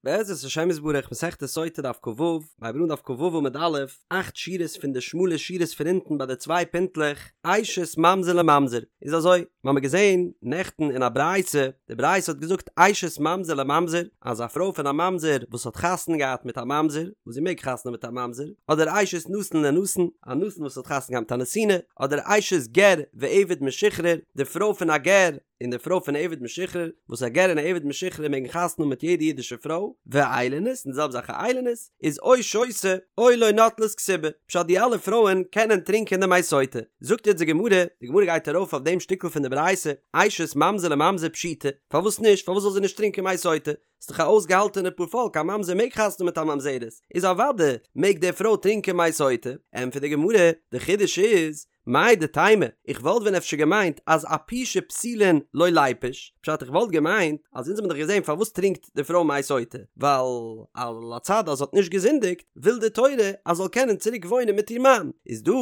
בעזרת השם יתברך מסכת סוטה דף כ"ו, מ'הייבט אן דף כ"ו עמוד א', אכט שורות פון די שמאלע שורות פון אונטן ביי די צוויי פינטלעך, אשת ממזר לממזר, איז אזוי, מ'האמיר געזען נעכטן אין א ברייתא, די ברייתא האט געזאגט אשת ממזר לממזר, אז א פרוי פון א ממזר וואס האט חתונה געהאט מיט א ממזר, וואס זי מעג חתונה האבן מיט א ממזר, אדער אשת נתין לנתין, א נתין וואס האט חתונה געהאט מיט א נתינה, אדער אשת גר ועבד משוחרר, די פרוי פון א גר, און די פרוי פון עבד משוחרר, וואס א גר און א עבד משוחרר מעגן חתונה האבן מיט יעדע אידישע פרוי, ואיילונית, און די זעלבע זאך א איילונית, איז או שותה, או לא נוטלת כתובה, פשט די אלע פרויען קענען טרינקען די מי סוטה. זאגט יעצט די גמרא, די גמרא גייט ארויף אויף דעם שטיקל פון די ברייתא, אשת ממזר לממזר פשיטא, פארוואס נישט, פארוואס זאל זי נישט טרינקען מי סוטה? ס'איז דאך א אויסגעהאלטענע פארפאלק, א ממזר מעג חתונה האבן מיט א ממזרת, איז אוודאי מעג די פרוי טרינקען מי סוטה, ענטפערט די גמרא, די חידוש איז, מהו דתימא, איך וואלט ווען אפשר געמיינט אז אפושי פסולין לא ליפוש, פשט איך וואלט געמיינט אז אונז האבן דאך געזען פארוואס טרינקט די פרוי מי סוטה, ווייל על הצד אז זי האט נישט געזינדיגט, וויל די תורה אז זאל קענען צוריק וואוינען מיט איר מאן, איז דא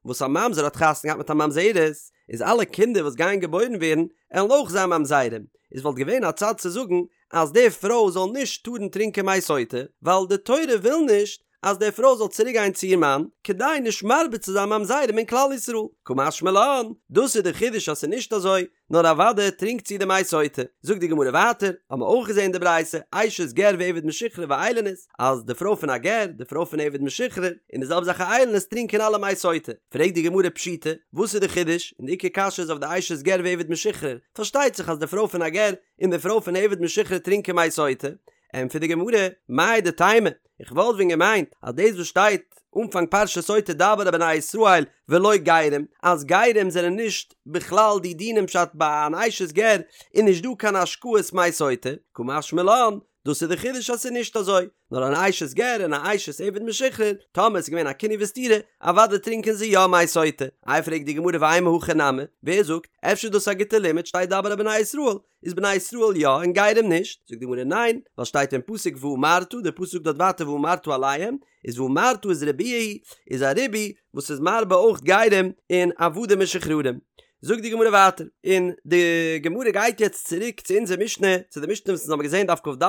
וואס א ממזר האט חתונה געהאט מיט א ממזרת, איז אלע קינדער וואס גייען געבוירן ווערן עלן אויך זיין ממזרים, איז וואלט געווען א צד צו זאגן אז די פרוי זאל נישט טארן טרינקען מי סוטה, ווייל די תורה וויל נישט אז די פרוי זאל צוריק גיין צו איר מאן, כדי נישט מרבה צו זיין ממזרים אין כלל ישראל. קא משמע לן, דאס איז די חידוש אז ס'איז נישט אזוי, נאר אוודאי טרינקט זי די מי סוטה. זאגט די גמרא ווייטער, האבן מיר אויך געזען די ברייתא, אשת גר ועבד משוחרר ואיילונית, אז די פרוי פון א גר, די פרוי פון עבד משוחרר, און די זעלבע זאך א איילונית טרינקען אלע מי סוטה. פרעגט די גמרא פשיטא, וואס איז די חידוש? און די עיקר קשיא איז אויף די אשת גר ועבד משוחרר, פארשטייט זיך אז די פרוי פון א גר און די פרוי פון עבד משוחרר טרינקען מי סוטה, ענטפערט די גמרא, מהו דתימא, איך וואלט ווען געמיינט אז דאס וואס שטייט אנפאנג פרשת סוטה דבר אל בני ישראל ולא גרים, אז גרים זענען נישט בכלל די דינים פשט ביי אן אשת גר איז נישט דא קיין השקאת מי סוטה, קא משמע לן, דאס איז די חידוש אז ס'איז נישט אזוי, נאר אן אשת גר און א אשת עבד משוחרר, טאמער ס'איז געווען א קינוי וסתירה, אוודאי טרינקען זיי יא מי סוטה. איי פרעגט די גמרא ואימא הכי נמי, ווער זאגט, אפשר איז דאס א גוטע לימוד שטייט דבר אל בני ישראל, איז בני ישראל יא און גרים נישט? זאגט די גמרא ניין, ווייל שטייט אין פסוק ואמרת, דער פסוק זאגט דארט ווייטער ואמרת אליהם, איז ואמרת איז ריבויא, איז א ריבוי וואס איז מרבה אויך גרים און עבדים משוחררים. זאגט די גמרא ווייטער, און די גמרא גייט יעצט צוריק צו אונזער משנה, צו די משנה וואס אונז האבן געזען דף כ"ד,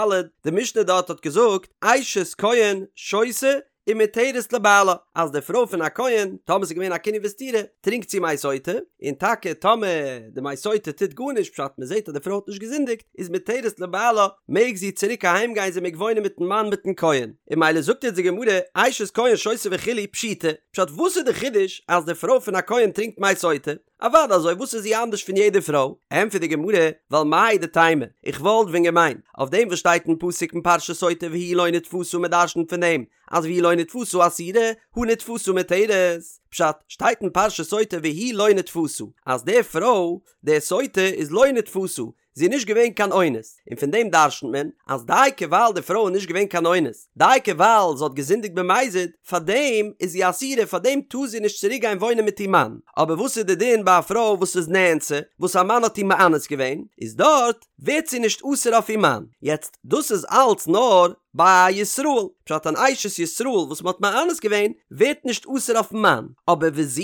די משנה דארט האט געזאגט, אשת כהן שותה ומותרת לבעלה, אז די פרוי פון א כהן, טאמער ס'איז געווען א קינוי וסתירה, טרינקט זי מי סוטה, און טאקע טאמער די מי סוטה טוט גארנישט, פשט מ'זעט אז די פרוי האט נישט געזינדיגט, איז מותרת לבעלה, מעג זי צוריק אהיים גיין זי מעג וואוינען מיטן מאן מיטן כהן. און ממילא זאגט יעצט די גמרא, אשת כהן שותה וכו' פשיטא, פשט וואס איז די חידוש אז די פרוי פון א כהן טרינקט מי סוטה? אוודאי אזוי וואס איז זי אנדערש פון יעדע פרוי? ענטפערט די גמרא, ווייל מהו דתימא, איך וואלט ווען געמיינט, אויף דעם וואס שטייט אין פסוק אין פרשת סוטה והיא לא נתפשה מען דרשנ'ט פון דעם אז והיא לא נתפשה אסורה, הא נתפשה מותרת, פשט, שטייט אין פרשת סוטה והיא לא נתפשה, אז די פרוי, די סוטה, איז לא נתפשה, זי איז נישט געווען קיין אונס, און פון דעם דרשנ'ט מען אז דייקא ווייל די פרוי איז נישט געווען קיין אונס, דייקא ווייל זי האט געזינדיגט במזיד, פאר דעם איז זי אסורה, פאר דעם טאר זי נישט צוריק גיין וואוינען מיט איר מאן. אבער וואס איז די דין ביי א פרוי וואס איז נאנסה, וואס א מאן האט איר מאנס געווען, איז דארט ווערט זי נישט אסור אויף איר מאן. יעצט, דאס איז אלץ נאר ביי א ישראל, פשט אן אשת ישראל וואס מען האט מאנס געווען ווערט נישט אסור אויפן מאן, אבער וזו,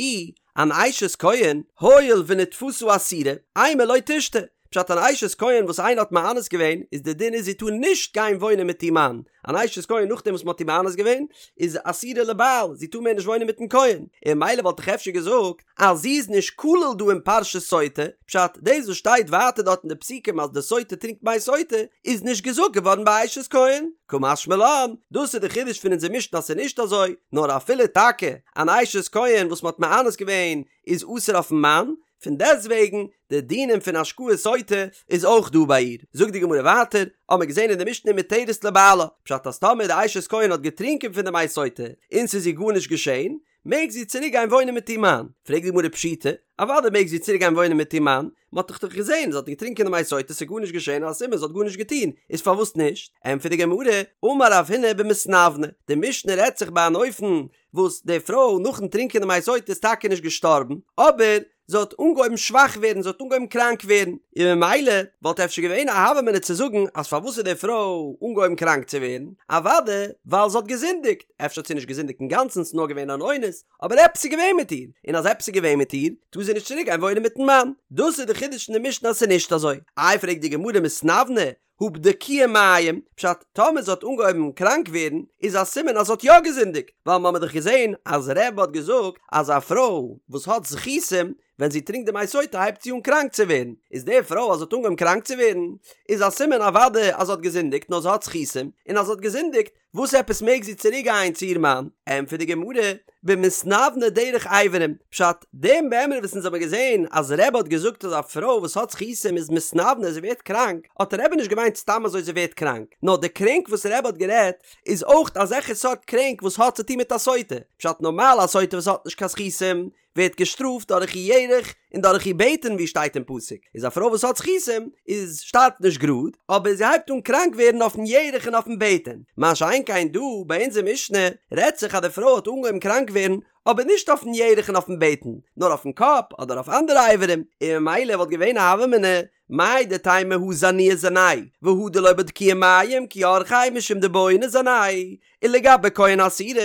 אן אשת כהן, הואיל ונתפשה אסורה, אימא לא תשתה, פשט אן אשת כהן וואס איינער האט מאנס געווען, איז די דין איז זי טאר נישט גיין וואוינען מיט איר מאן, אן אשת כהן נאכדעם וואס מען האט איר מאנס געווען, איז אסורה לבעל, זי טאר מער נישט וואוינען מיטן כהן, און ממילא וואלט איך אפשר געזאגט אז זי איז נישט כלול דא אין פרשת סוטה, פשט דאס וואס שטייט ווייטער דארט אין די פסוקים אז די סוטה טרינקט מי סוטה, איז נישט געזאגט געווארן ביי אשת כהן, קא משמע לן, דאס איז די חידוש פון אונזער משנה אז ס'איז נישט אזוי, נאר אפילו טאקע אן אשת כהן וואס מ'האט מאנס געווען איז אסור אויפן מאן, פון דעסטוועגן די דינים פון השקאת סוטה איז אויך דא ביי איר. זאגט די גמרא ווייטער, האמער געזען אין די משנה מותרת לבעלה, פשט אז טאמער די אשת כהן האט געטרינקען פון די מי סוטה און ס'איז איר גארנישט געשען, מעג זי צוריק גיין וואוינען מיט איר מאן. פרעגט די גמרא פשיטא, אוודאי מעג זי צוריק גיין וואוינען מיט איר מאן, מען האט דאך דאך געזען זי האט געטרינקען די מי סוטה ס'איז גארנישט געשען א סימן זי האט גארנישט געטון, איז פארוואס נישט? ענטפערט די גמרא, אמר רב הונא במתנוונה, די משנה רעדט זיך ביי אן אופן וואס די פרוי נאכן טרינקען די מי סוטה איז טאקע נישט געשטארבן, אבער זי האט אנגעהויבן שוואך ווערן, זי האט אנגעהויבן קראנק ווערן, און ממילא וואלט אפשר געווען א הוה אמינא צו זאגן אז פארוואס איז די פרוי אנגעהויבן קראנק צו ווערן, אוודאי ווייל זי האט געזינדיגט, אפשר האט זי נישט געזינדיגט אינגאנצן ס'איז נאר געווען אן אונס, אבער עפעס איז געווען מיט איר, און אז עפעס איז געווען מיט איר, טאר זי נישט צוריק גיין וואוינען מיטן מאן. דאס איז די חידוש אין די משנה אז ס'איז נישט אזוי. איי פרעגט די גמרא מתנוונה, הא בדקוה מים, פשט, טאמער זי האט אנגעהויבן קראנק ווערן, איז א סימן אז זי האט יא געזינדיגט, ווייל מ'האמיר דאך געזען אז רבי האט געזאגט אז א פרוי וואס האט זכותים, ווען זי טרינקט די מי סוטה הייבט זי אן קראנק צו ווערן, איז די פרוי אז זי האט אנגעהויבן קראנק צו ווערן, איז א סימן אוודאי אז זי האט געזינדיגט נאר זי האט זכותים, און אז זי האט געזינדיגט, וואס עפעס מעג זי צוריק גיין צו איר מאן? ענטפערט די גמרא, במתנוונה דרך אברים, פשט, דעם מימרא וואס אונז האבן געזען אז רבי האט געזאגט אז א פרוי וואס האט זכותים איז מתנוונה זי ווערט קראנק, האט רבי נישט געמיינט סתם אזוי זי ווערט קראנק, נאר די קרענק וואס רבי האט גערעדט איז אויך אזעלכע סארט קרענק וואס האט צוטון מיט א סוטה, פשט נארמאל א סוטה וואס האט נישט קיין זכותים ווערט געשטראפט דורך איר ירך און דורך איר בטן ווי שטייט אין פסוק, איז א פרוי וואס האט זכותים איז שטארבט נישט גראד, אבער זי הייבט אן קראנק ווערן אויפן ירך און אויפן בטן, מה שאין כן דא ביי אונזער משנה רעדט זיך אז די פרוי האט אנגעהויבן קראנק ווערן אבער נישט אויפן ירך און אויפן בטן נאר אויפן קאפ אדער אויף אנדערע אברים, און ממילא וואלט געווען א הוה אמינא מהו דתימא הא זנויי זנאי והא דלא בדקוה מים כי אורחיה משום דבעי ניזני ולגבי כהן אסירא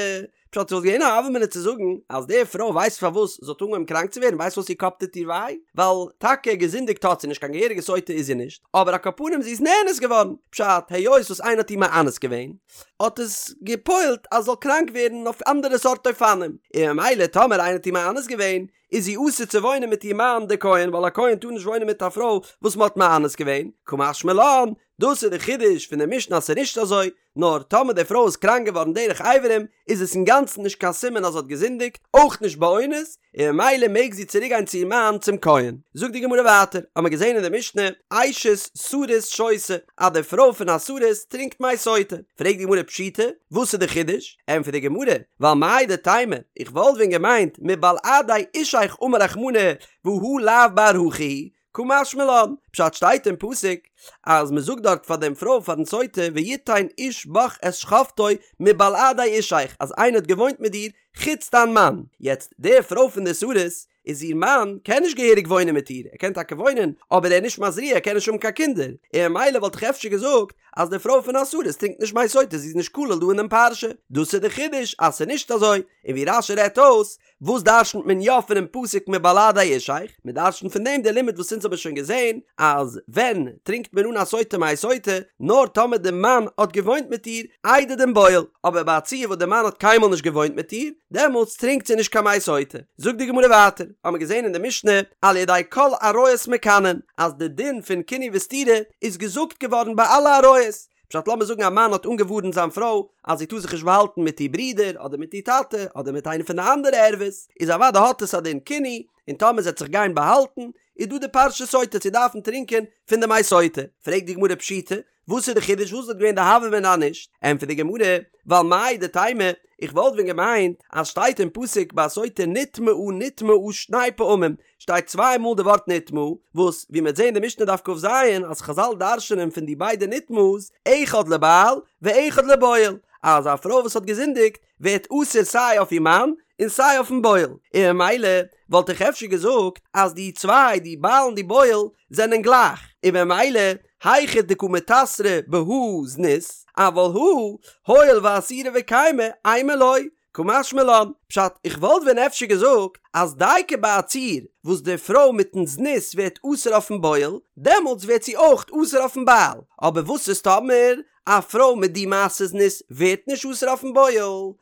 פשט ס'וואלט געווען א הוה אמינא צו זאגן אז די פרוי ווייסט פארוואס זי האט אנגעהויבן קראנק צו ווערן ווייסט פארוואס איר קאפ טוט איר וויי ווייל טאקע געזינדיגט האט זי נישט קיין געהעריגע סוטה איז זי נישט אבער על כל פנים זי איז נאנס געווארן פשט היות וואס איינער האט איר מאנס געווען האט עס געפועלט אז זאל קראנק ווערן אויף אנדערע סארט אופנים און ממילא טאמער איינער האט איר מאנס געווען איז זי אסור צו וואוינען מיט איר מאן דער כהן ווייל א כהן טאר נישט וואוינען מיט א פרוי וואס מען האט מאנס געווען, קא משמע לן, דאס איז די חידוש פון די משנה אז ס'איז נישט אזוי, נאר טאמער די פרוי איז קראנק געווארן דרך אברים איז עס אינגאנצן נישט קיין סימן אז זי האט געזינדיגט, אויך נישט באונס, און ממילא מעג זי צוריק גיין צו איר מאן צום כהן. זאגט די גמרא ווייטער, האמער געזען אין די משנה, אשת סריס שותה, אז די פרוי פון א סריס טרינקט מי סוטה, פרעגט די גמרא פשיטא, וואס איז די חידוש? ענטפערט די גמרא, ווייל מהו דתימא, איך וואלט ווען געמיינט מבלעדי אישך אמר רחמנא והא לאו בר הכי הוא, קא משמע לן, פשט שטייט אין פסוק אז מען זאגט דארט פאר דעם פרוי פארן סוטה ויתן איש בך את שכבתו מבלעדי אישך אז איינער האט געוואוינט מיט דיר חוץ דיין מאן, יעצט די פרוי פון די סריס איז איר מאן קען נישט געהעריג וואוינען מיט איר, ער קען טאקע וואוינען, אבער ער איז נישט מזריע, ער קען נישט האבן קיין קינדער, און ממילא וואלט איך אפשר געזאגט אז די פרוי פון א סריס טרינקט נישט מי סוטה, זי איז נישט כלול דא אין דעם פרשה. דאס איז די חידוש אז ס'איז נישט אזוי, און ווי רש"י רעדט אויס, וואס דרשנ'ט מען יא פונעם פסוק מבלעדי אישך? מען דרשנ'ט פון דעם די לימוד וואס אונז האבן שוין געזען, אז ווען טרינקט מען אן א סוטה מי סוטה? נאר טאמער די מאן האט געוואוינט מיט איר איידער דעם בועל, אבער ביי א ציור וואס די מאן האט קיינמאל נישט געוואוינט מיט איר, דעמאלטס טרינקט זי נישט קיין מי סוטה. זאגט די גמרא ווייטער, האמער געזען אין די משנה, על ידי כל עריות מקנין, אז די דין פון קינוי וסתירה איז געזאגט געווארן ביי אלע עריות. פשט לאמיר זאגן א מאן האט אנגעווארנט זיין פרוי אז זי טאר זיך נישט באהאלטן מיט איר ברודער אדער מיט איר טאטע אדער מיט איינע פון די אנדערע ערוות, איז אוודאי האט עס א דין קינוי, און טאמער זי וועט זיך גיין באהאלטן, איז דא די פרשת סוטה צו דארפן טרינקען פון די מי סוטה. פרעגט די גמרא פשיטא, וואס איז די חידוש וואס וואלט געווען די הוה אמינא אז נישט? ענטפערט די גמרא, ווייל מהו דתימא, איך וואלט ווען געמיינט אז שטייט אין פסוק ביי סוטה נטמאה נטמאה שני פעמים, שטייט צוויי מאל די ווארט נטמאה, וואס ווי מ'וועט זען אין די משנה דף כ"ז אז חזל דרש'נען פון די ביידע נטמאה'ס, אחד לבעל ואחד לבועל, אז א פרוי וואס האט געזינדיגט ווערט אסור סיי אויף איר מאן און סיי אויפן בועל, און ממילא וואלט איך אפשר געזאגט אז די צוויי, די בעל און די בועל, זענען גלייך, און ממילא היכא דקא מיתסרא בהא זנות, אבל הא, הואיל ואסירא וקיימא, אימא לא, קא משמע לן, פשט, איך וואלט ווען אפשר געזאגט אז דייקא ביי א ציור וואס די פרוי מיטן זנות ווערט אסור אויפן בועל, דעמאלטס ווערט זי אויך אסור אויפן בעל, אבער וואס איז טאמער א פרוי מיט די מעשה זנות ווערט נישט אסור אויפן בועל,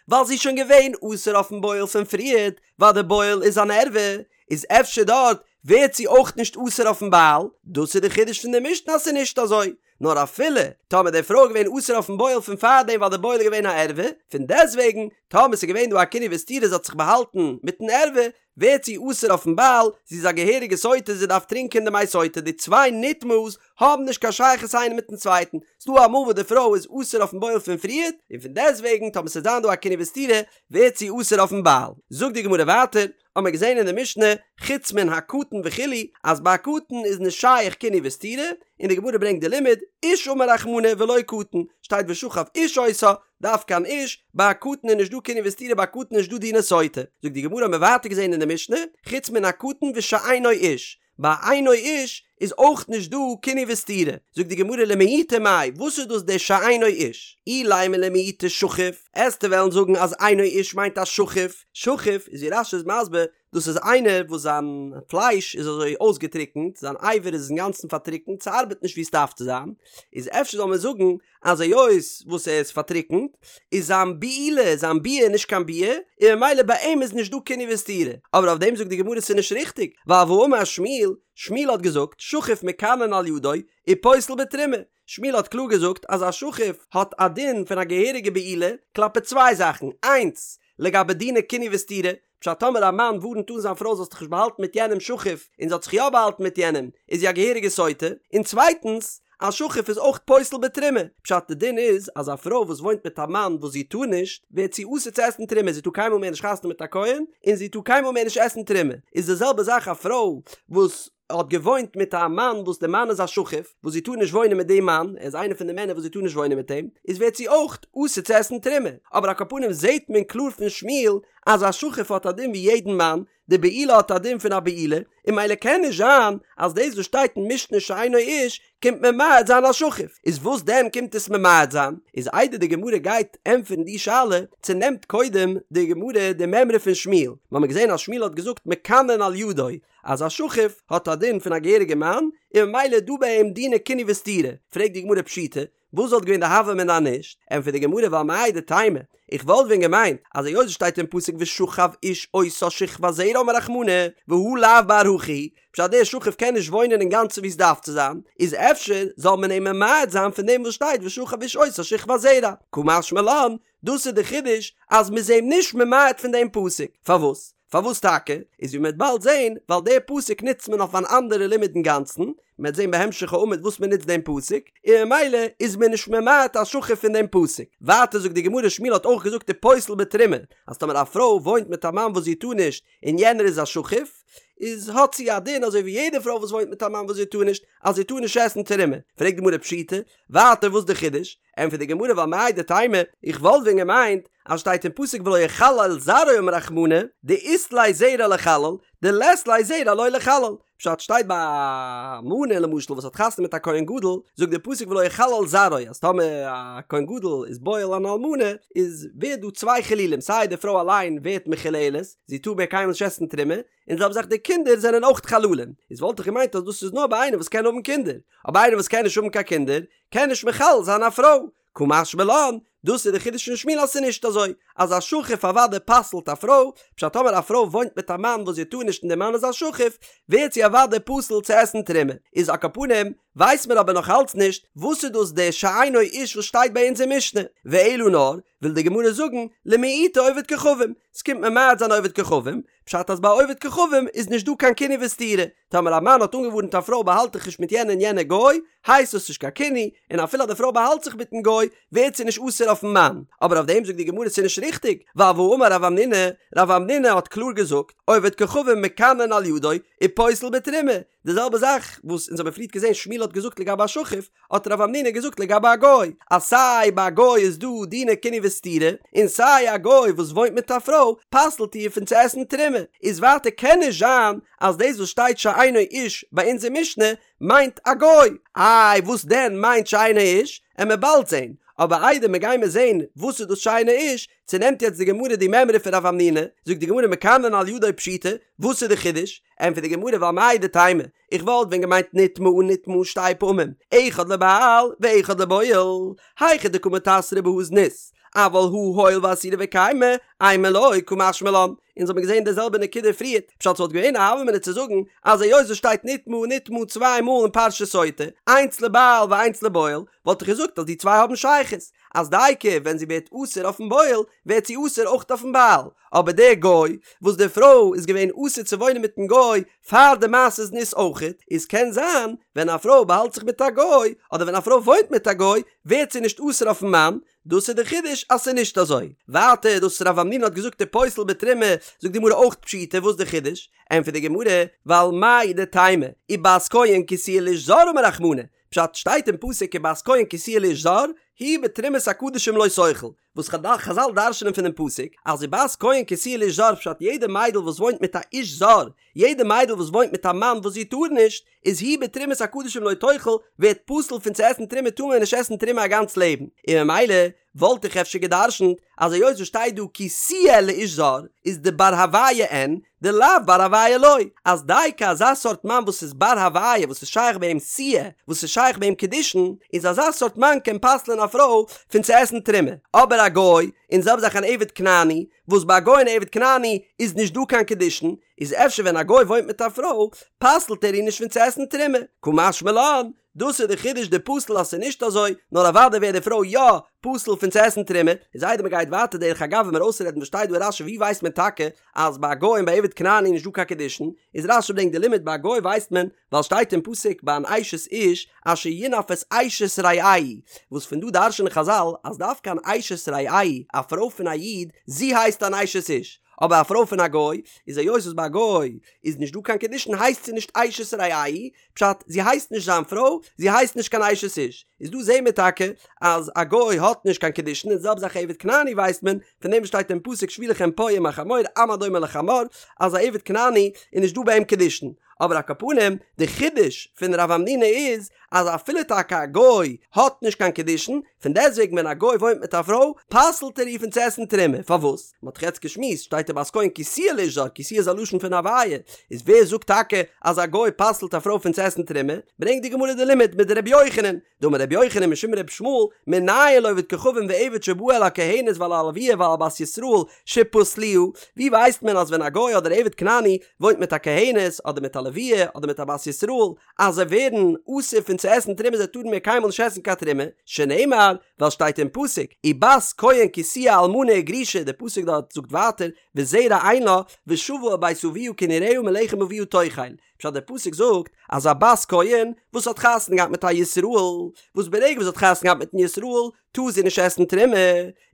ווייל זי איז שוין געווען אסור אויפן בועל פון פריערט, ווייל די בועל איז אן ערווה, איז אפשר דארט ווערט זי אויך נישט אסור אויפן בעל, דאס איז די חידוש פון די משנה אז ס'איז נישט אזוי, נאר אפילו טאמער די פרוי איז געווען אסור אויפן בועל פון פארדעם ווייל די בועל איז געווען א ערווה, פון דעסטוועגן טאמער ס'איז געווען דא א קינוי וסתירה זי האט זיך באהאלטן מיטן ערווה, ווערט זי אסור אויפן בעל, זי איז א געהעריגע סוטה זי דארף טרינקען די מי סוטה, די צוויי נטמאה'ס האבן נישט קיין שייכות איינער מיטן צווייטן, ס'דא אמאל וואס די פרוי איז אסור אויפן בועל פון פריערט, און פון דעסטוועגן טאמער ס'וועט זיין דא א קינוי וסתירה ווערט זי אסור אויפן בעל. זאגט די גמרא ווייטער, האמער געזען אין די משנה, חוץ מן הקטן וכו', אז ביי א קטן איז נישט שייך קינוי וסתירה, און די גמרא ברענגט די לימוד, איש אמר רחמנא ולא קטן, שטייט ושכב איש אותה, דווקא אן איש, ביי א קטן איז נישט דא קינוי וסתירה ביי א קטן איז נישט דא דיני סוטה. זאגט די גמרא האמער ווייטער געזען אין די משנה, חוץ מן הקטן ושאינו איש, ביי אינו איש. איז אויך נישט דא קינוי וסתירה. זאגט די גמרא למעוטי מאי, וואס איז דאס דער שאינו איש? אילימא למעוטי שכוף, עסטו וועלן זאגן אז אינו איש מיינט א שחוף, שחוף איז ווי רש"י איז מסביר, דאס איז איינער וואס זיין פלייש איז אזוי אויסגעטריקנט, זיין אבר איז אינגאנצן פארטריקנט, ס'ארבעט נישט ווי ס'דארף צו זיין, איז אפשר זאל מען זאגן אז היות וואס ער איז פארטריקנט, איז זיין בעילה, זיין ביאה נישט קיין ביאה, און ממילא ביי אים איז נישט דא קינוי וסתירה. אבער אויף דעם זאגט די גמרא ס'איז נישט ריכטיג, ווייל והאמר שמואל, שמואל האט געזאגט, שחוף מקנין על ידו, ופוסל בתרומה. שמואל האט קלאר געזאגט אז א שחוף האט א דין פון א געהעריגע בעילה כלפי צוויי זאכן, איינס, לגבי דיני קינוי וסתירה, פשט טאמער א מאן ווארנט אן זיין פרוי זאלסט דיך נישט באהאלטן מיט יענעם שחוף און זי האט זיך יא באהאלטן מיט יענעם איז זי א געהעריגע סוטה, און צווייטנס א שחוף איז אויך פוסל בתרומה, פשט די דין איז אז א פרוי וואס וואוינט מיט א מאן וואס זי טאר נישט ווערט זי אסור צו עסן תרומה זי טאר קיינמאל מער נישט חתונה מיט א כהן און זי טאר קיינמאל מער נישט עסן תרומה, איז די זעלבע זאך א פרוי וואס האט געוואוינט מיט א מאן וואס די מאן איז א שחוף וואס זי טאר נישט וואוינען מיט דעם מאן, ער איז איינער פון די מענער וואס זי טאר נישט וואוינען מיט אים, איז ווערט זי אויך אסור צו עסן תרומה, אבער על כל פנים זעהט מען קלאר פון שמואל אז א שחוף האט א דין ווי יעדן מאן, די בעילה האט א דין פון א בעילה, און ממילא קען נישט זיין אז דאס וואס שטייט אין משנה שאינו איש קומט ממעט זיין א שחוף, איז וואס דען קומט עס ממעט זיין? איז איידער די גמרא גייט ענטפערן די שאלה, צונעמט קודם די גמרא די מימרא פון שמואל, מ'האמיר געזען אז שמואל האט געזאגט מקנין על ידו, אז א שחוף האט א דין פון א געהעריגע מאן, און ממילא איז דא ביי אים דיני קינוי וסתירה, פרעגט די גמרא פשיטא, וואס וואלט געווען די הוה אמינא אז נישט? ענטפערט די גמרא ווייל מהו דתימא, איך וואלט ווען געמיינט אז היות עס שטייט אין פסוק ושכב איש אותה שכבת זרע אמר רחמנא, והא לאו בר הכי הוא, פשט דער שחוף קען נישט וואוינען אינגאנצן ווי עס דארף צו זיין, איז אפשר זאל מען אים ממעט זיין פון דעם וואס שטייט ושכב איש אותה שכבת זרע, קא משמע לן, דאס איז די חידוש אז מ'איז אים נישט ממעט פון דעם פסוק. פארוואס? פארוואס טאקע? איז ווי מ'וועט באלד זען, ווייל דער פסוק נוצט מען אויף אן אנדערע לימוד אינגאנצן, מ'וועט זען בהמשך העמוד וואס מ'נוצט דעם פסוק, און ממילא איז מען נישט ממעט א שחוף פון דעם פסוק. ווייטער זאגט די גמרא שמואל האט אויך געזאגט ופוסל בתרומה, אז טאמער א פרוי וואוינט מיט א מאן וואס זי טאר נישט, און יענער איז א שחוף, איז האט זי א דין אזוי ווי יעדע פרוי וואס וואוינט מיט א מאן וואס זי טאר נישט, אז זי טאר נישט עסן תרומה. פרעגט די גמרא פשיטא, ווייטער וואס די חידוש? ענטפערט די גמרא ווייל מהו דתימא, איך וואלט ווען געמיינט אז שטייט אין פסוק ולא יחלל זרעו אמר רחמנא, דאית ליה זרע ליחלל, דלית ליה זרע לא ליחלל, פשט שטייט ביי א אלמנה למשל וואס האט חתונה מיט א כהן גדול, זאגט די פסוק ולא יחלל זרעו אז טאמער א כהן גדול איז בועל אן אלמנה איז ווערט דא צוויי חילולים סיי די פרוי אליין ווערט מחוללת זי טאר מער קיינמאל נישט עסן תרומה, און זעלבע זאך די קינדער זענען אויך חללים, איז וואלט איך געמיינט אז דאס איז נאר ביי איינער וואס קען האבן קינדער, אבער איינער וואס קען נישט האבן קיין קינדער קען נישט מחלל זיין א פרוי, קא משמע לן, דאס איז די חידוש פון שמואל אז ס'איז נישט אזוי אז א שחוף אוודאי פסל'ט א פרוי, פשט טאמער א פרוי וואוינט מיט א מאן וואס זי טאר נישט און די מאן איז א שחוף, ווערט זי אוודאי פסול צו עסן תרומה, איז על כל פנים ווייסט מען אבער נאך אלץ נישט וואס איז דאס דער שאינו איש וואס שטייט ביי אונז אין משנה, ואלא נאר וויל די גמרא זאגן למעוטי עובד כוכבים, ס'קומט ממעט זיין עובד כוכבים, פשט אז ביי עובד כוכבים איז נישט דא קיין קינוי וסתירה, טאמער א מאן האט אנגעווארנט א פרוי באהאלט דיך נישט מיט יענע און יענע גוי, הייסט דאס נישט קיין קינוי, און אפילו אז די פרוי באהאלט זיך מיטן גוי, ווערט זי נישט אסור אויפן מאן. אבער אויף דעם זאגט די גמרא ס'איז נישט ריכטיג, ווייל והאמר רב המנונא, רב המנונא האט קלאר געזאגט, עובד כוכבים מקנין על ידו, ופוסל בתרומה, די זעלבע זאך וואס אונז האבן פריערט געזען שמואל האט געזאגט לגבי א שחוף, האט רב המנונא געזאגט לגבי א גוי, אז סיי ביי א גוי איז דא דיני קינוי וסתירה, און סיי א גוי וואס וואוינט מיט א פרוי פסל'ט איר פון צו עסן תרומה, איז ווייטער קען נישט זיין אז דאס וואס שטייט שאינו איש ביי אונז אין משנה מיינט א גוי, איי וואס דען מיינט שאינו איש, עמיר באלד זען, אבער איידער מיר גיימיר זען וואס איז דאס שאינו איש, צונעמט יעצט די גמרא די מימרא פון רב המנונא, זאגט די גמרא מקנין על ידו פשיטא, וואס איז די חידוש? ענטפערט די גמרא ווייל מהו דתימא, איך וואלט ווען געמיינט נטמאה נטמאה שתי פעמים, אחד לבעל ואחד לבועל, היכא דקא מיתסרא בהא זנות, אבל הא הואיל ואסירא וקיימא, אימא לא קא משמע לן, אונז האבן געזען די זעלבע נקודה פריערט, פשט ס'וואלט געווען א הוה אמינא צו זאגן אז היות עס שטייט נטמאה נטמאה צוויי מאל אין פרשת סוטה, איינס לבעל ואיינס לבועל, וואלט איך געזאגט אז די צוויי האבן שייכות, אז דייקא ווען זי ווערט אסור אויפן בועל, ווערט זי אסור אויך אויפן בעל, אבער דער גוי, וואס די פרוי איז געווען אסור צו וואוינען מיטן גוי פאר די מעשה זנות אויכעט, איז קען זיין ווען א פרוי באהאלט זיך מיט א גוי, אדער ווען א פרוי וואוינט מיט א גוי, ווערט זי נישט אסור אויפן מאן, דאס איז די חידוש אז ס'איז נישט אזוי. ווייטער דאס רב המנונא האט געזאגט ופוסל בתרומה, זאגט די גמרא אויך פשיטא, וואס די חידוש? ענטפערט די גמרא, ווייל מהו דתימא, ובת כהן כי תהיה לאיש זר אמר רחמנא, פשט שטייט אין פסוק ובת כהן כי תהיה לאיש זר, היא בתרומת הקדשים לא תאכל, וואס חזל דרש'נען פונעם פסוק אז ובת כהן כי תהיה לאיש זר פשט יעדע מיידל וואס וואוינט מיט א איש זר, יעדע מיידל וואס וואוינט מיט א מאן וואס זי טאר נישט, איז היא בתרומת הקדשים לא תאכל, ווערט פסול פון צו עסן תרומה טאר מען נישט עסן תרומה א גאנץ לעבן, און ממילא וואלט איך אפשר גע'דרש'נט אז היות וואס שטייט דא כי תהיה לאיש זר איז דבר הוויה אין, דלאו בר הוויה לא, אז דייקא אזא סארט מאן וואס איז בר הוויה וואס איז שייך ביי אים תהיה, וואס איז שייך ביי אים קידושין, איז אזא סארט מאן קען פסל'ען א פרוי פון צו עסן תרומה, אבער א גוי, און זעלבע זאך אן עבד כנעני, וואס ביי א גוי און עבד כנעני איז נישט דא קיין קידושין, איז אפשר ווען א גוי וואוינט מיט א פרוי פסל'ט ער איר נישט פון צו עסן תרומה, קא משמע לן, דאס איז די חידוש דפסיל אז ס'איז נישט אזוי, נאר אוודאי ווערט די פרוי יא פסול פון צו עסן תרומה, איז איידער מ'גייט ווייטער דרך אגב ווען מיר אויסרעדן וואס שטייט דא אין רשי ווי ווייסט מען טאקע אז ביי א גוי און ביי עבד כנעני איז נישט דא קיין קידושין, איז רשי ברענגט די לימוד ביי א גוי ווייסט מען ווייל שטייט אין פסוק ביי אן אשת איש אשר ינאף את אשת רעהו, וואס פון דא דרש'נען חזל אז דווקא אן אשת רעהו, א פרוי פון א איד, זי הייסט אן אשת איש, אבער א פרוי פון א גוי, איז היות וואס ביי א גוי איז נישט דא קיין קידושין הייסט זי נישט אשת רעהו, פשט, זי הייסט נישט זיין פרוי, זי הייסט נישט קיין אשת איש. איז דא זעהן מיר טאקע אז א גוי האט נישט קיין קידושין און די זעלבע זאך עבד כנעני ווייסט מען פון דעם וואס שטייט אין פסוק שבו לכם פה עם החמור עם הדומה לחמור אז א עבד כנעני איז נישט דא ביי אים קידושין. אבער על כל פנים די חידוש פון רב המנונא איז אז אפילו טאקע א גוי האט נישט קיין קידושין, פון דעסטוועגן ווען א גוי וואוינט מיט א פרוי פסל'ט ער איר פון צו עסן תרומה, פארוואס? מען האט דאך יעצט געשמועסט, שטייט ובת כהן כי תהיה לאיש זר, כי תהיה איז א לשון פון הוויה, איז ווער זאגט טאקע אז א גוי פסל'ט א פרוי פון צו עסן תרומה? ברענגט די גמרא די לימוד מדרבי יוחנן, דאמר רבי יוחנן משום רבי ישמעאל, מנין לעובד כוכבים ועבד שבא על הכהנת ועל הלוויה ועל בת ישראל שפסלוה, ווי ווייסט מען אז ווען א גוי אדער עבד כנעני וואוינט מיט א כהנת אדער מיט א לוויה אדער מיט א בת ישראל אז זיי ווערן אסור פון צו עסן תרומה זיי טארן מער קיינמאל נישט עסן קיין תרומה, שנאמר, ווייל שטייט אין פסוק, ובת כהן כי תהיה אלמנה וגרושה, דער פסוק דארט זאגט ווייטער, וזרע אין לה, ושבה אל בית אביה כנעוריה מלחם אביה תאכל, פשט דער פסוק זאגט אז א בת כהן וואס האט חתונה געהאט מיט א ישראל, וואס ברגע וואס זי האט חתונה געהאט מיטן ישראל טאר זי נישט עסן תרומה,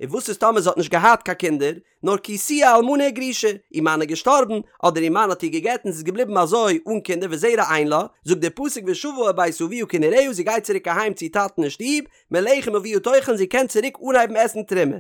און וואס איז טאמער זי האט נישט געהאט קיין קינדער, נאר כי תהיה אלמנה וגרושה, איר מאן איז געשטארבן, אדער איר מאן האט איר געגט און זי איז געבליבן אזוי אן קינדער וזרע אין לה, זאגט דער פסוק ושבה אל בית אביה כנעוריה זי גייט צוריק אהיים צו איר טאטן אין שטוב, מלחם אביה תאכל זי קען צוריק אנהייבן עסן תרומה.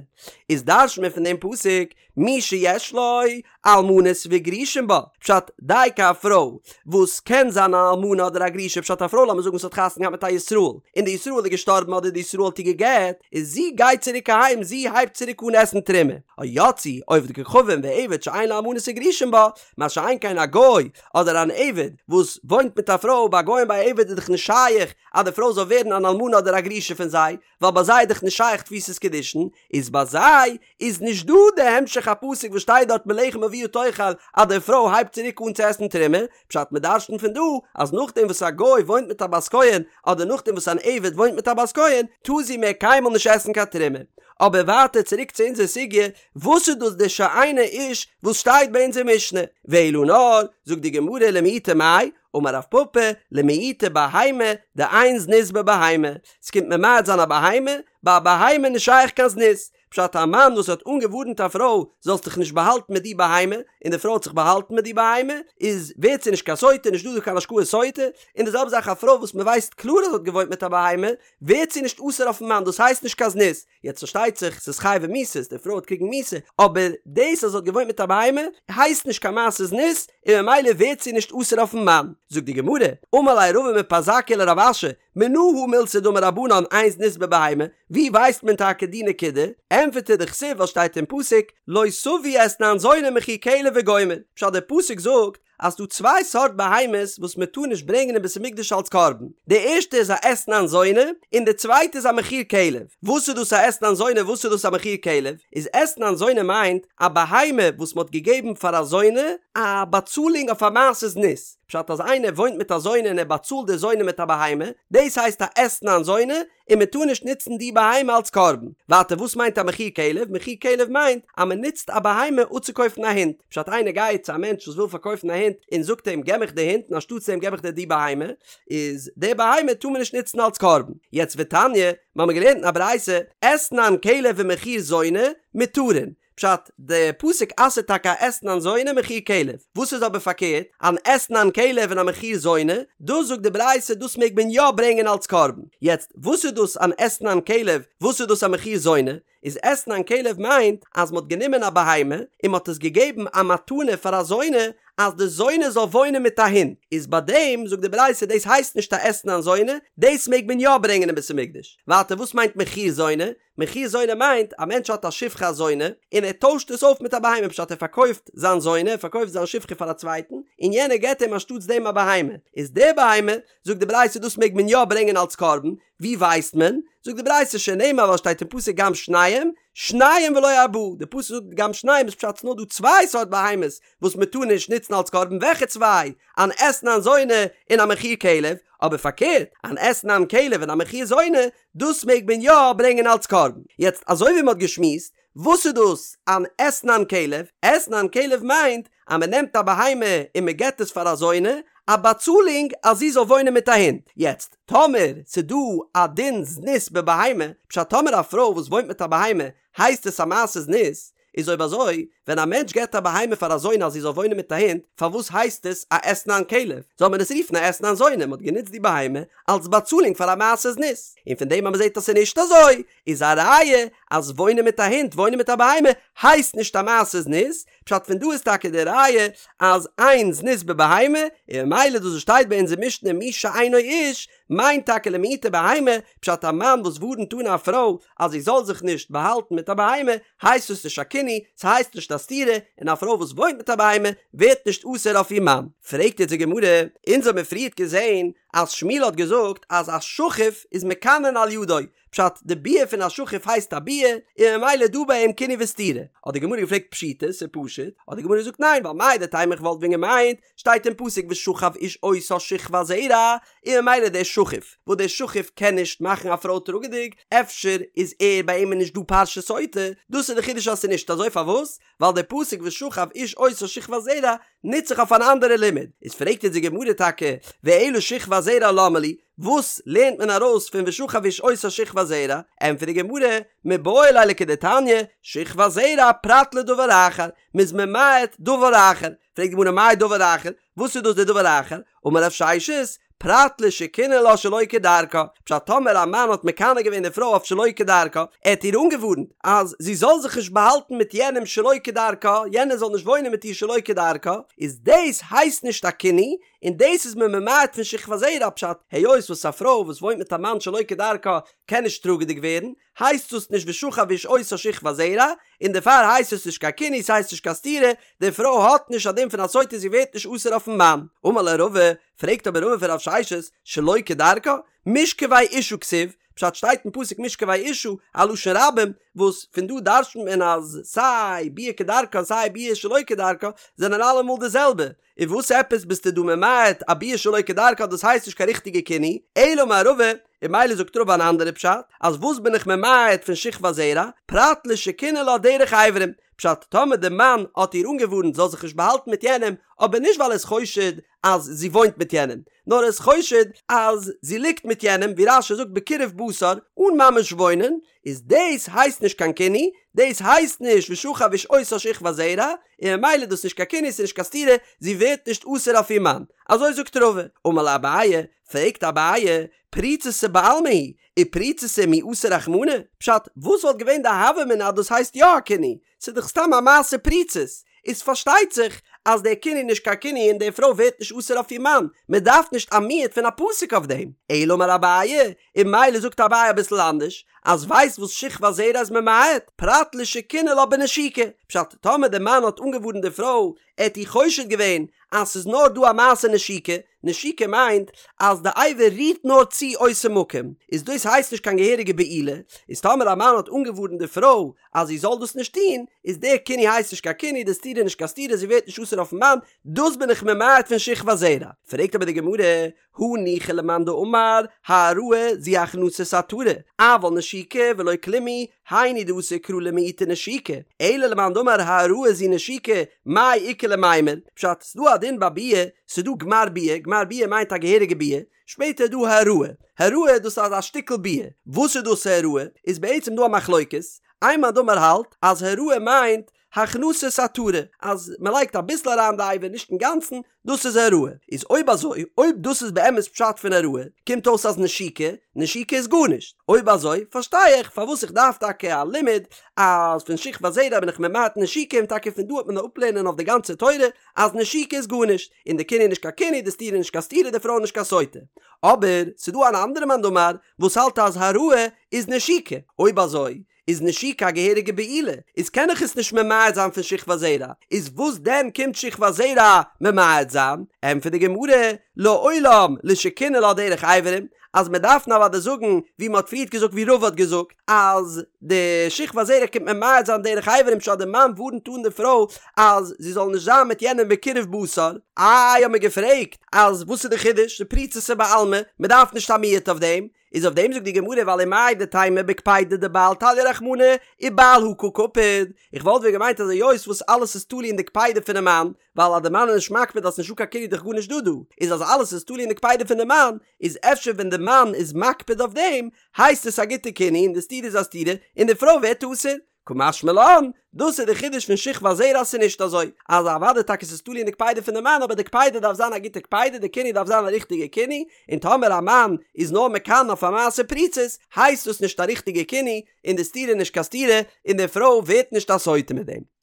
איז דרש'נט מען פון דעם פסוק, מי שיש לו אלמנות וגרושים בה, פשט, דייקא א פרוי וואס קען זיין אן אלמנה אדער א גרושה, פשט א פרוי לאמיר זאגן וואס האט חתונה געהאט מיט א ישראל, און די ישראל איז געשטארבן אדער די ישראל האט איר גע'גט, איז זי גייט צוריק אהיים זי הייבט צוריק אן עסן תרומה, או יצאו עובד כוכבים ועבד שאין לו אלמנות וגרושים בה, מה שאין כן א גוי אדער אן עבד וואס וואוינט מיט א פרוי, ביי א גוי און ביי א עבד איז דאך נישט שייך אז די פרוי זאל ווערן אן אלמנה אדער א גרושה פון זיי, ווייל ביי זיי איז דאך נישט שייך תפיסת קידושין, איז ביי זיי איז נישט דא די המשך הפסוק וואס שטייט דארט מלחם אביה תאכל אז די פרוי הייבט צוריק אן צו עסן תרומה, פשט מען דרש'נט פון דא אז נאכדעם וואס א גוי וואוינט מיט א בת כהן אדער נאכדעם וואס אן עבד וואוינט מיט א בת כהן טאר זי מער קיינמאל נישט עסן קיין תרומה. אבער ווייטער צוריק צו אונזער סוגיא, וואס איז דאס די שאינו איש וואס שטייט ביי אונזער משנה? ואלא נאר, זאגט די גמרא למעוטי מאי, אמר רב פפא, למעוטי בהמה, דאין זנות בבהמה, ס'קומט ממעט זיין א בהמה, ביי א בהמה נישט שייך קיין זנות, פשט א מאן וואס האט אנגעווארנט א פרוי זאלסט דיך נישט באהאלטן מיט די בהמה, און די פרוי האט זיך באהאלטן מיט די בהמה, איז ווערט זי נישט קיין סוטה, נישט דא דא קיין השקאת סוטה, און די זעלבע זאך א פרוי וואס מ'ווייסט קלאר אז זי האט געוואוינט מיט א בהמה, ווערט זי נישט אסור אויפן מאן, דאס הייסט נישט קיין זנות, יעצט פארשטייט זיך ס'איז חייבי מיתות, די פרוי וועט קריגן מיתה, אבער דאס אז זי האט געוואוינט מיט א בהמה הייסט נישט קיין מעשה זנות, און ממילא ווערט זי נישט אסור אויפן מאן. זאגט די גמרא, אמר ליה רבא מפרזקיא לרב אשי, מנא הא מילתא דאמור רבנן אין זנות בבהמה, ווי ווייסט מען טאקע די נקודה? ענטפערט ער דכתיב ווייל שטייט אין פסוק לא תביא אתנן זונה ומחיר כלב וגומר, פשט דער פסוק זאגט אז ס'דא צוויי סארט בהמות וואס מען טאר נישט ברענגען אין בית המקדש אלס קרבן, די ערשטע איז א אתנן זונה, און די צווייטע איז א מחיר כלב. וואס איז דאס א אתנן זונה וואס איז דאס א מחיר כלב? איז אתנן זונה מיינט א בהמה וואס מען האט געגעבן פאר א זונה א באצאלונג אויף א מעשה זנות, פשט אז איינער וואוינט מיט א זונה און ער באצאלט די זונה מיט א בהמה, דאס הייסט א אתנן זונה, און מען טאר נישט נוצן די בהמה אלס קרבן. ווייטער וואס מיינט א מחיר כלב? מחיר כלב מיינט אז מען נוצט א בהמה אפצוקויפן א הונט. פשט איינער גייט צו א מענטש וואס וויל פארקויפן א הונט און זאגט אים געב מיך די הונט און אנשטאטס דעם געב איך דיר די בהמה, איז די בהמה טאר מען נישט נוצן אלס קרבן. יעצט ותניא, מיר האבן געלערנט אין א ברייתא, אתנן כלב ומחיר זונה, מותרין. פשט, די פסוק אסר'ט טאקע א אתנן זונה מחיר כלב, וואס איז אבער פארקערט, אן אתנן כלב און א מחיר זונה, דאס זאגט די ברייתא דאס מעג מען יא ברענגען אלס קרבן, יעצט וואס איז דאס אן אתנן כלב, וואס איז דאס א מחיר זונה, איז אתנן כלב מיינט אז מ'האט גענומען א בהמה און מ'האט עס געגעבן א מתנה פאר א זונה אז די זונה זאל וואוינען מיט א הונט, איז ביי דעם זאגט די ברייתא דאס הייסט נישט א אתנן זונה, דאס מעג מען יא ברענגען אין בית המקדש. ווייטער וואס מיינט מחיר זונה? מחיר זונה מיינט א מענטש האט א שפחה א זונה און ער טוישט עס אויף מיט א בהמה פשט ער פארקויפט זיין זונה ער פארקויפט זיין שפחה פאר א צווייטן און יענער געט אים אנשטאטס דעם א בהמה איז די בהמה זאגט די ברייתא דאס מעג מען יא ברענגען אלס קרבן ווי ווייסט מען? זאגט די ברייתא שנאמר ווייל שטייט אין פסוק גם שניהם, שניים ולא ארבעה, די פסוק זאגט גם שניהם איז פשט ס'נאר דא צוויי סארט בהמות וואס מען טאר נישט נוצן אלס קרבן וועלכע צוויי? אן אתנן זונה און א מחיר כלב, אבער פארקערט אן אתנן כלב און א מחיר זונה דאס מעג מען יא ברענגען אלס קרבן. יעצט אזוי ווי מען האט געשמועסט וואס איז דאס אן אתנן כלב? אתנן כלב מיינט אז מען נעמט א בהמה און מען געבט עס פאר א זונה, א באצאלונג אז זי זאל וואוינען מיט א הונט. יעצט, טאמער ס'איז דא א דין זנות בבהמה, פשט טאמער א פרוי וואס וואוינט מיט א בהמה הייסט עס א מעשה זנות, איז אויב אזוי, ווען א מענטש געבט א בהמה פאר א זונה אז זי זאל וואוינען מיט א הונט, פארוואס הייסט עס א אתנן כלב? זאל מען עס רופן א אתנן זונה, מען האט גענוצט די בהמה אלס באצאלונג פאר א מעשה זנות. און פון דעם אז מען זעט אז ס'איז נישט אזוי, איז א ראיה אז וואוינען מיט א הונט, וואוינען מיט א בהמה, הייסט נישט א מעשה זנות, פשט פון דא איז טאקע די ראיה אז אין זנות בבהמה, און ממילא דאס וואס שטייט ביי אונזער משנה מי שאינו איש, מיינט טאקע למעוטי בהמה, פשט א מאן וואס ווארנט אן א פרוי אז זי זאל זיך נישט באהאלטן מיט א בהמה, הייסט עס נישט א קינוי, ס'הייסט נישט א סתירה, און א פרוי וואס וואוינט מיט א בהמה ווערט נישט אסור אויף איר מאן. פרעגט יעצט די גמרא, אונז האבן מיר פריערט געזען אז שמואל האט געזאגט אז א שכוף איז מקנין על ידו, פשט, די ביאה פון א שכוף הייסט א ביאה, און ממילא דא ביי אים קינוי וסתירה. האט די גמרא געפרעגט פשיטא, ס'איז פשוט, האט די גמרא געזאגט ניין, ווייל מהו דתימא איך וואלט ווען געמיינט, שטייט אין פסוק ושכב איש אותה שכבת זרע, און ממילא דער שכוף, וואס דער שכוף קען נישט מאכן א פרוי טראגעדיג, אפשר איז ער ביי אים נישט דא פרשת סוטה, דאס איז די חידוש אז ס'איז נישט אזוי, פארוואס? ווייל דער פסוק ושכב איש אותה שכבת זרע נוצט זיך אויף אן אנדערע לימוד, איז פרעגט אונז די גמרא טאקע ואלא שכבת זרע למה לי, וואס לערנט מען ארויס פון ושכב איש אותה שכבת זרע, ענטפערט די גמרא, מיבעי ליה לכדתניא, שכבת זרע פרט לדבר אחר, מ'איז ממעט דבר אחר, פרעגט די גמרא מאי דבר אחר, וואס איז דאס דער דבר אחר? אמר רב ששת, פרט לשקינא לה שלא כדרכה, פשט טאמער א מאן האט מקנא געווען די פרוי אויף שלא כדרכה, ער האט איר אנגעווארנט אז זי זאל זיך נישט באהאלטן מיט יענעם שלא כדרכה, יענער זאל נישט וואוינען מיט איר שלא כדרכה, איז דאס הייסט נישט א קינוי, און דאס איז מען ממעט פון שכבת זרע, פשט, היות וואס א פרוי וואס וואוינט מיט א מאן שלא כדרכה קען נישט טראגעדיג ווערן, הייסט דאס נישט ושכב איש אותה שכבת זרע, און דערפאר הייסט עס נישט קיין קינוי, ס'הייסט נישט קיין סתירה, די פרוי האט נישט א דין פון א סוטה זי ווערט נישט אסור אויפן מאן. אמר ליה רבא, פרעגט אבער רבא פון רב ששת, שלא כדרכה, משכבי אשה כתיב, פשט שטייט אין פסוק משכבי אשה, א לשון רבים, וואס פון דא דרש'נט מען אז סיי ביאה כדרכה און סיי ביאה שלא כדרכה זענען אלעמאל די זעלבע, און וואס עפעס ביסטו דא ממעט א ביאה שלא כדרכה דאס הייסט נישט קיין ריכטיגע קינוי, אלא אמר רבא, און ממילא זאגט רבא אן אנדערע פשט, אז וואס בין איך ממעט פון שכבת זרע, פרט לשקינא לה דרך אברים, פשט טאמער די מאן האט איר אנגעווארנט זאל זיך נישט באהאלטן מיט יענעם, אבער נישט ווייל ער איז חושד אז זי וואוינט מיט יענעם, נאר ער איז חושד אז זי ליגט מיט יענעם, ווי רש"י זאגט בקירוב בשר, אן ממש וואוינען, איז דאס הייסט נישט קיין קינוי, דאס הייסט נישט ושכב איש אותה שכבת זרע, און ממילא איז דאס נישט קיין קינוי ס'איז נישט קיין סתירה, זי ווערט נישט אסור אויף איר מאן. אזוי זאגט רבא. אמר ליה אביי, פרעגט אביי, פריצותא בעלמא היא, ופריצותא מי אסר רחמנא? פשט, וואס וואלט געווען די הוה אמינא אז דאס הייסט יא א קינוי? ס'איז דאך סתם א מעשה פריצות. איז פארשטייט זיך אז דער קינוי איז נישט קיין קינוי און די פרוי ווערט נישט אסור אויף איר מאן, מען דארף נישט א מיעוט פון א פסוק אויף דעם. אלא אמר אביי, און ממילא זאגט אביי אביסל אנדערש, אז ווייסט וואס שכבת זרע איז ממעט, פרט לשקינא לה בנשיקה, פשט, טאמער די מאן האט אנגעווארנט די פרוי, ער האט איר חושד געווען אז ס'איז נאר דא א מעשה נשיקה, נשיקה מיינט אז די אבר רירט נאר צו אותו מקום, איז דאס הייסט נישט קיין געהעריגע בעילה, איז טאמער א מאן האט אנגעווארנט די פרוי אז זי זאל דאס נישט טון, איז דער קינוי הייסט נישט קיין קינוי, די סתירה איז נישט קיין סתירה, זי ווערט נישט אסור אויפן מאן, דאס בין איך ממעט פון שכבת זרע. פרעגט אבער די גמרא, הניחא למאן דאמר העראה זו הכנסת עטרה, אבל נשיקה ולא כלום היא, היינו דאתא קרא למעוטי נשיקה, אלא למאן דאמר העראה זו נשיקה, מאי איכא למימר, פשט, ס'דא א דין ביי ביאה, ס'דא גמר ביאה, גמר ביאה מיינט א געהעריגע ביאה, שפעטער איז דא העראה, העראה דאס איז א שטיקל ביאה, וואס איז דאס העראה? איז בעצם דא א מחלוקת, איין מאן דאמר האלט אז העראה מיינט הכנסת עטרה, אז מען לייגט אביסל אריין די אבר נישט אינגאנצן, דאס איז העראה. איז אויב אזוי, אויב דאס איז באמת פשט פון העראה, קומט אויס אז נשיקה, נשיקה איז גארנישט. אויב אזוי, פארשטיי איך פארוואס איך דארף טאקע א לימוד אז פון שכבת זרע בין איך ממעט נשיקה און טאקע פון דא וועט מען אפלערנען אויף די גאנצע תורה אז נשיקה איז גארנישט, און די קינוי איז נישט קיין קינוי, די סתירה איז נישט קיין סתירה, די פרוי איז נישט קיין סוטה. אבער, ס'דא אן אנדערע מאן דאמר וואס האלט אז העראה איז נשיקה. אויב אזוי, איז נשיקה א געהעריגע בעילה, איז קען איך עס נישט ממעט זיין פון שכבת זרע, איז וואס דען קומט שכבת זרע ממעט זיין? ענטפערט די גמרא, לעולם לשקינא לה דרך אברים, אז מען דארף נאר אוודאי זאגן ווי מען האט פריערט געזאגט ווי רבא האט געזאגט אז די שכבת זרע קומט ממעט זיין דרך אברים פשט די מאן ווארנט אן די פרוי אז זי זאל נישט זיין מיט יענעם בקירוב בשר, איי האט מען געפרעגט אז וואס איז די חידוש, דפריצותא בעלמא, מען דארף נישט א מיעוט אויף דעם, איז אויף דעם זאגט די גמרא ווייל ומאי דתימא בקפידא דבעל תליא רחמנא ובעל הא קא קפיד, איך וואלט ווען געמיינט אז היות וואס אלעס איז תלוי אין די קפידה פונעם מאן, ווייל אז די מאן איז נישט מקפיד אז ס'נישטא קיין קינוי איז דאך גארנישט דא דא, איז אז אלעס איז תלוי אין די קפידה פון די מאן, איז אפשר ווען די מאן איז מקפיד אויף דעם, הייסט עס א גוטע קינוי און די סתירה איז א סתירה און די פרוי ווערט אסור. קא משמע לן, דאס איז די חידוש פון שכבת זרע אז ס'איז נישט אזוי, אז אוודאי טאקע ס'איז תלוי אין די קפידה פון די מאן אבער די קפידה דארף זיין א גוטע קפידה, די קינוי דארף זיין א ריכטיגע קינוי, און טאמער א מאן איז נאר מקנא אויף א מעשה פריצות, הייסט דאס נישט א ריכטיגע קינוי, און די סתירה איז נישט קיין סתירה, און די פרוי ווערט נישט א סוטה מיט דעם.